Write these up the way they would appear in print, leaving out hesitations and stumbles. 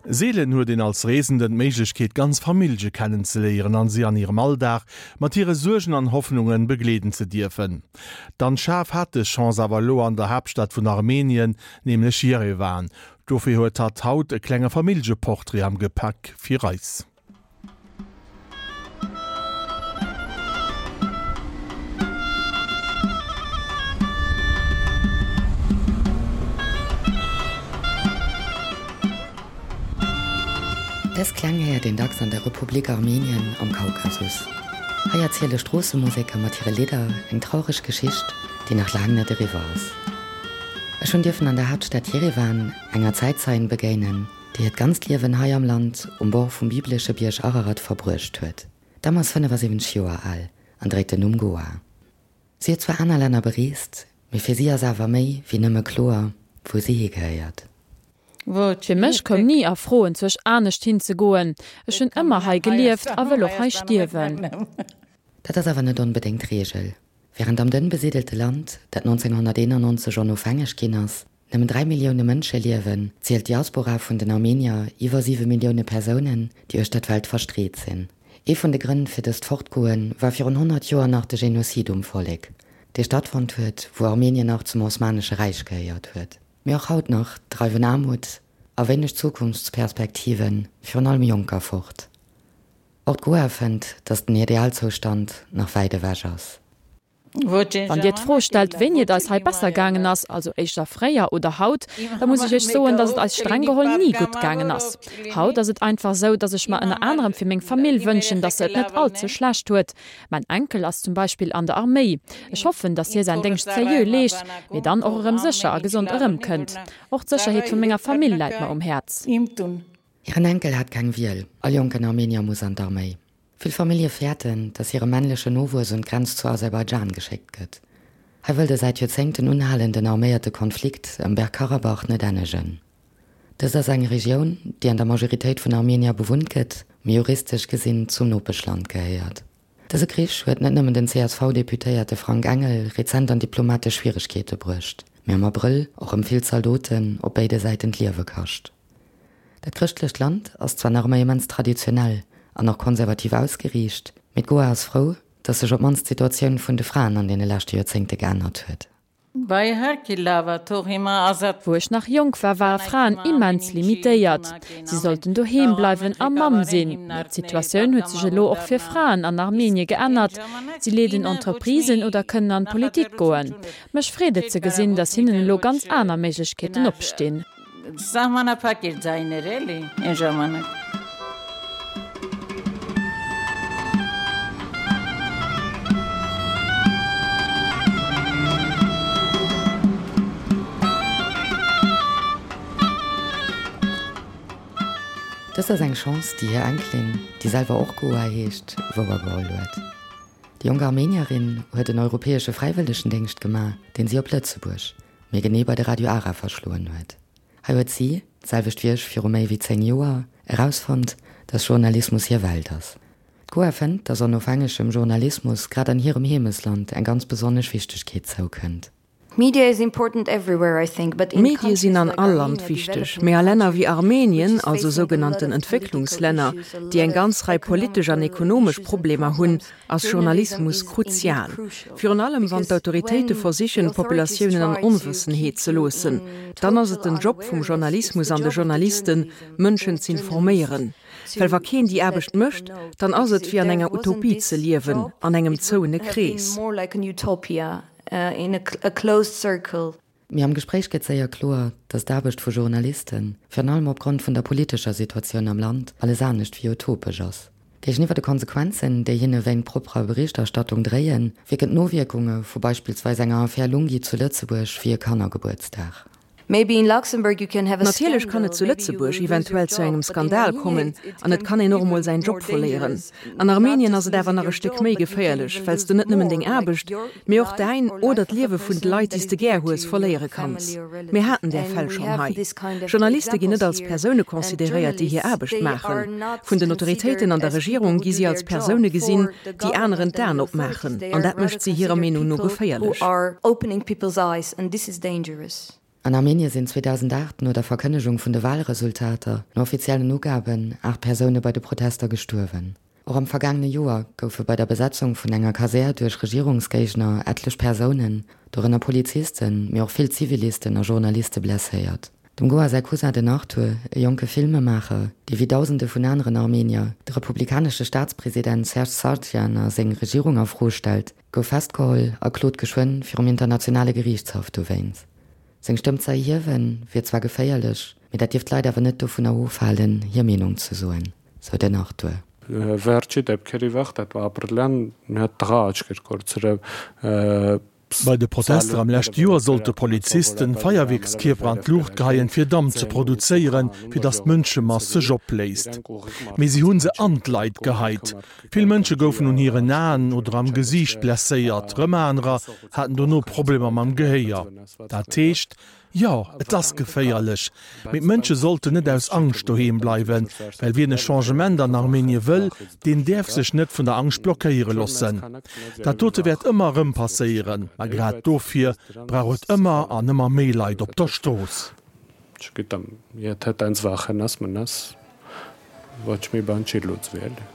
Seelen huet een als Reesenden d'Méiglechkeet ganz Famillje kennenzeléieren an si an hirem Alldag mat hire Suergen an Hoffnungen begleeden ze dierfen. D'Anne Schaaf hat dës Chance awer elo an der Haaptstad vun Armenien, nämlech Jerewan. Dofir huet hatt haut e klenge Familljeportrait am Gepäck fir eis. Dës Kläng héiert een dacks an der Republik Armenien am Kaukasus. Hei erziele Stroossemuseker mat hire Lidder eng traureg Geschicht, déi nach laang net eriwwer ass. Ech hunn dierfen an der Haaptstad Jerewan enger Zäitzeien begéinen, déi hiert ganzt Liewen hei am Land um Bord vum biblesche Bierg Ararat verbruecht huet. D'Damm ass 75 Joer al an dréit den Numm Goa. Si huet zwar aner Länner bereest, mee fir si ass awer méi wéi nëmme kloer, wou si higehéiert. Fir mech koum ni a Fro enzwousch anescht hinzegoen. Ech hunn ëmmer hei gelieft a wëll och hei stierwen. Dat ass awer net onbedéngt d'Reegel. Wärend am dënn besidelte Land, dat 1991 onofhängeg ginn ass, nëmmen 3 Millioune Mënsche liewen, zielt d'Diaspora vun den Armenier iwwer 7 Millioune Persounen, déi uechter d'Welt verstreet sinn. Ee vun de Grënn fir dëst Fortgoe war virun 100 Joer nach de Genozid um Vollek, dee stattfonnt huet, wou Armenien nach zum Osmanesche Räich gehéiert huet. Mee och haut nach dreiwen Aarmut a wéineg Zukunftsperspektive virun allem Jonker fort. Och d'Goa fënnt, datt den Idealzoustand nach wäit ewech ass. Wann Dir d'Fro stellt, wéini et eis hei besser gaangen ass, also éischter fréier oder haut, da muss ech Iech soen, datt et eis streng geholl ni gutt gaangen ass. Haut ass et einfach esou, datt ech mer ënner anerem fir meng Famill wënschen, datt se et net all ze schlecht huet. Mäin Enkel ass zum Beispill an der Arméi. Ech hoffen, datt hie säin Déngscht seriö leescht, mee dann och erëm sécher a gesond erëmkënnt. Och d'Sécherheet vu menger Famill läit mer um Häerz. Hiren Enkel hat keng Wiel, all jonken Armenier muss an d'Arméi. Vill Famillje fäerten, datt hire männlechen Nowuess un d'Grenz zu Aserbaidschan geschéckt gëtt. Hei wëll de säit Joerzéngten unhalenden arméierte Konflikt ëm Bergkarabach net ennegen. Dëst ass eng Regioun, déi an der Majoritéit vun Armenier bewunnt gëtt, mee juristesch gesinn zum Nopeschland gehéiert. Dëse Krich huet net nëmmen den CSV-Deputéierte Frank Engel rezent an diplomatesch Schwieregkeete bruecht, mee am Abrëll och rëm vill Zaldoten op béide Säiten d'Liewe kascht. Dat chrëschtlecht Land ass zwar nach ëmmer immens traditionell an och konservativ ausgeriicht, mee d'Goa ass frou, datt sech op d'mannst d'Situatioun vun de Fraen an deene leschte Joerzéngte geännert huet. Wou ech nach jonk war, ware Fraen immens limitéiert. Si sollten doheem bleiwen a Mamm sinn. Mee d'Situatioun huet sech elo och fir Fraen an Armenie geännert. Si leeden Entreprisen oder kënnen an d'Politik goen. Mech freet et ze gesinn, datt hinnen elo ganz aner Méiglechkeeten opstinn. Սահմանափակ էր ձայները, էլի, այն ժամանակ։ Dëst ass eng Chance, déi hir Enkelin, déi selwer och Goa heescht, wouergeholl huet. Déi jonk Armenierin huet en europäesche Fräiwëllegendéngscht gemaach, deen si op Lëtzebuerg, Méi genee bei de Radio Ara verschloen huet. Hei huet si, d'selwecht wéi ech viru méi wéi 10 Joer, erausfonnt, dass Journalismus hir Welt ass. D'Goa fënnt, dass onofhängegem Journalismus grad an hirem Heemesland eng ganz besonnesch Wichtegkeet zoukënnt. Medie sinn an all Land wichteg, mee a Länner wéi Armenien, also sougenannten Entwécklungslänner, déi eng ganz Rei politesch an ekonomesch Problemer hunn, ass Journalismus kruzial. Virun allem wann d'Autoritéite versichen, d'Populatiounen an Onwëssenheet ze loossen. Dann ass et den Job vum Journalismus an de Journalisten, Mënschen z'informéieren. Well wa keen déi Aarbecht mécht, dann ass et wéi an enger Utopie ze liewen, an engem zouene Krees. Mee am Gespréich gëtt séier kloer, datt d'Aarbecht vu Journalisten, virun allem opgrond vun der politescher Situatioun am Land, alles anescht wéi utopesch ass. Géigeniwwer de Konsequenzen, déi hinne wéint propperer Berichterstattung dréien, wierken d'Nowierkunge vu beispillsweis enger Affär Lunghi zu Lëtzebuerg wéi e Kannergebuertsdag. Natierlech kann et zu Lëtzebuerg eventuell zu engem Skandal kommen an et kann een och emol säin Job verléieren. An Armenien ass et awer nach e Stéck méi geféierlech, well s de net nëmmen deng Aarbecht, mee och däin oder d'Liewe vun de Leit, déi s de gär hues, verléiere kanns. Mir haten där Fäll schonn hei. Journaliste ginn net als Persoune consideréiert, déi hir Aarbecht maachen. Vun den Autoritéiten an der Regierung gi si als Persoune gesinn, déi aneren d'Aen opmaachen, an dat mécht si hirer Meenung no geféierlech. An Armenie sinn 2008 no der Verkënnegung vun de Walresultater, no offiziellen Ugaben, 8 Persoune bei de Protester gestuerwen. Och am vergaangene Joer goufe bei der Besetzung vun enger Kasär duerch Regierungsgéigner etlech Persounen, dorënner Polizisten, mee och vill Zivilisten a Journaliste blesséiert. Dem Goa säi Cousin den Arthur, e jonke Filmemaacher, dee wéi Dausende vun aneren Armenier de republikanesche Staatspresident Serge Sargsyan a seng Regierung a Fro stellt, gouf festgeholl a klot geschwënn virum internationale Geriichtshaff dowéinst. Seng Stëmm ze erhiewen, wier zwar geféierlech, mee dat dierft d'Leit awer net dovunner ofhalen, hir Meenung ze soen, sou den Arthur. Վերջի դեպքերի վաղ դա ապրիլյան մի հատ տղա աչք էր կորցրել Bei de Protester am leschte Joer sollte Polizisten Feierwierkskierper an d'Luucht geheien, fir Damp ze produzéieren, fir datt d'Mënschemass sech opléist. Mee si hu se an d'Leit geheit. Vill Mënsche goufen un hiren Aen oder am Gesiicht blesséiert, rëm anerer haten dono Problemer mam Gehéier. Dat heescht, jo, et ass geféierlech, mee d'Mënsche sollten net aus Angscht doheem bleiwen, well wien e Changement an Armenie wëll, deen däerf sech net vun der Angscht blockéiere loossen. Dat dote wäert ëmmer erëm passéieren, ma grad dofir brauch et ëmmer an ëmmer méi Leit op der Strooss. Չգիտեմ, եթե տենց վախենաս, մնաս, ոչ մի բան չի լուծվի, էլի։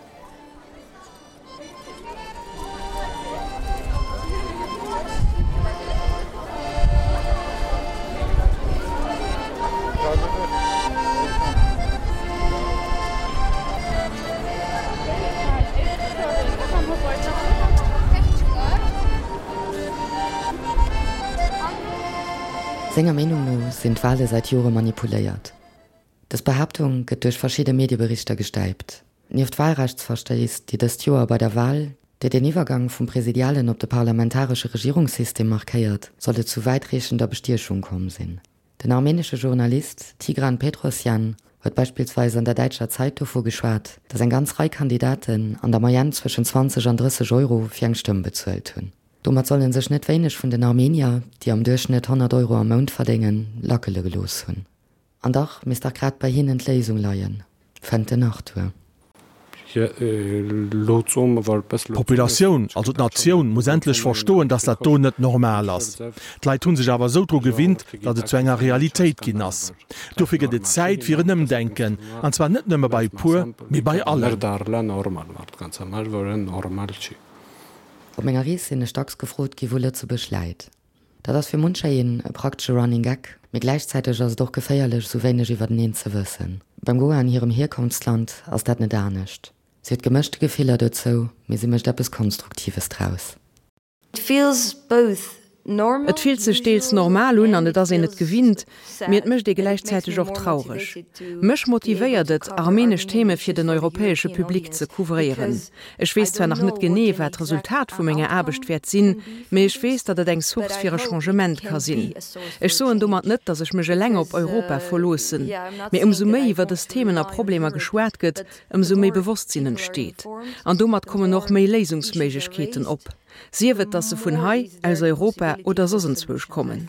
Senger Meenung no sinn d'Wale säit Jore manipuléiert. Dës Behaaptung gëtt duerch verschidde Medieberichter gestäipt. Nieft Walrechtsverstéiss, déi dëst Joer bei der Wal, déi den Iwwergang vum presidialen op de parlamentaresche Regierungssystem markéiert, soll et zu wäitreechender Bestiechung komm sinn. Den armenesche Journalist Tigran Petrosjan huet beispillsweis an der däitscher Zeit dovu geschwat, datt eng ganz Rei Kandidaten an der Moyenne zwëschen 20 an 30 Euro fir eng Stëmm bezuelt hunn. Domat solle sech net wéineg vun den Armenier, déi am Duerchschnëtt 100 Euro am Mount verdéngen, lackele gelooss hunn. An dach misst dach grad bei hinnen d'Léisung leien, fënnt den Arthur. D'Populatioun, also d'Natioun, muss endlech verstoen, datt dat do net normal ass. D'Leit hu sech awer esou dru gewinnt, datt et zu enger Realitéit ginn ass. Dofir gëtt et Zäit fir en Ëmdenken, an zwar net nëmme bei e puer, mee bei allen. Op menger Rees sinn ech dacks gefrot gi wou Lëtzebuerg läit. Dat ass fir muncher een e praktesche Running Gag, mee gläichzäiteg ass et och geféierlech esou wéineg iwwerteneen ze wëssen. Beim Goa an hirem Hierkonftsland ass dat net anescht. Si huet gemëschte Gefiller dozou, mee si mécht eppes Konstruktives draus. It feels both normal, Et fillt sech deels normal un an et ass een et gewinnt, mee et mécht ee gläichzäiteg och traureg. Mech motivéiert et, armenesch Theme fir den europäesche Public ze couvréieren. Ech weess zwar nach net genee, wat d'Resultat vu menger Aarbecht wäert sinn, mee ech weess, datt et eng Source fir e Changement ka sinn. Ech soen domat net, datt ech mech eleng op Europa verloossen, mee ëmsou méi iwwer dës Themen a Problemer geschwat gëtt, ëmsou méi Bewosstsinn entsteet. An domat kommen och méi Léisungsméiglechkeeten op. Sief et, datt se vun hei, aus Europa oder soss enzwousch kommen.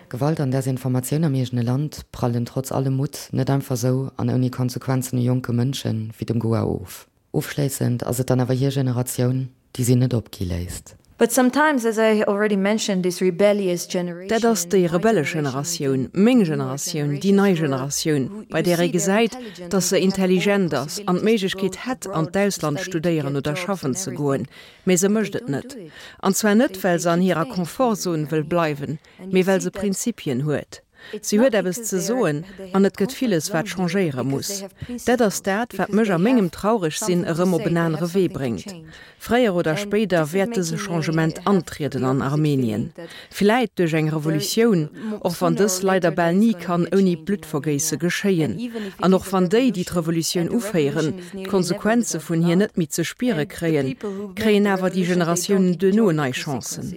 Gewalt an Desinformatioun am eegene Land prallen trotz allem Mutt net einfach sou an ouni Konsequenzen u jonke Mënsche wéi dem Goa of. Ofschléissend ass et dann awer hir Generatioun, déi si net opgi léisst. But sometimes, as I already mentioned, this rebellious generation, Dat ass déi rebellesch Generatioun, meng Generatioun, déi nei Generatioun, bei där ee gesäit, datt se intelligent ass an d'Méiglechkeet hätt, an d'Ausland studéieren oder schaffen ze goen, mee se mécht et net. An zwar net, well se an hirer Confortzon wëll bleiwen, mee well se Prinzipien huet. Si huet eppes ze soen an et gëtt villes, wat changéiere muss. Dat ass dat, wat mech a mengem Trauregsinn erëm op en anere Wee bréngt. Fréier oder spéider wäert dëse Changement antrieden an Armenien. Vläit duerch eng Revolutioun, och wann dës leider bal ni kann ouni Bluttvergéisse geschéien. An och wann déi, déi d'Revolutioun uféieren, d'Konsequenze vun hir net méi ze spiere kréien, kréien awer déi Generatiounen duerno nei Chancen.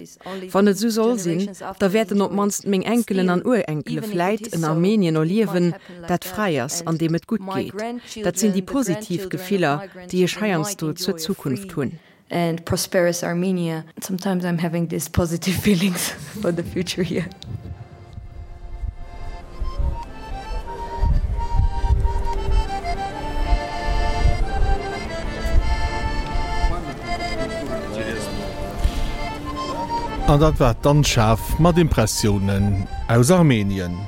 Wann et esou soll sinn, da wäerten op d'mannst meng Enkelen an Urenkele vläit en Armenien erliewen, dat fräi ass, an deem et gutt geet. Dat sinn déi positiv Gefiller, déi ech heiansdo zur Zukunft hunn. An dat war d'Anne Schaaf mat Impressiounen aus Armenien.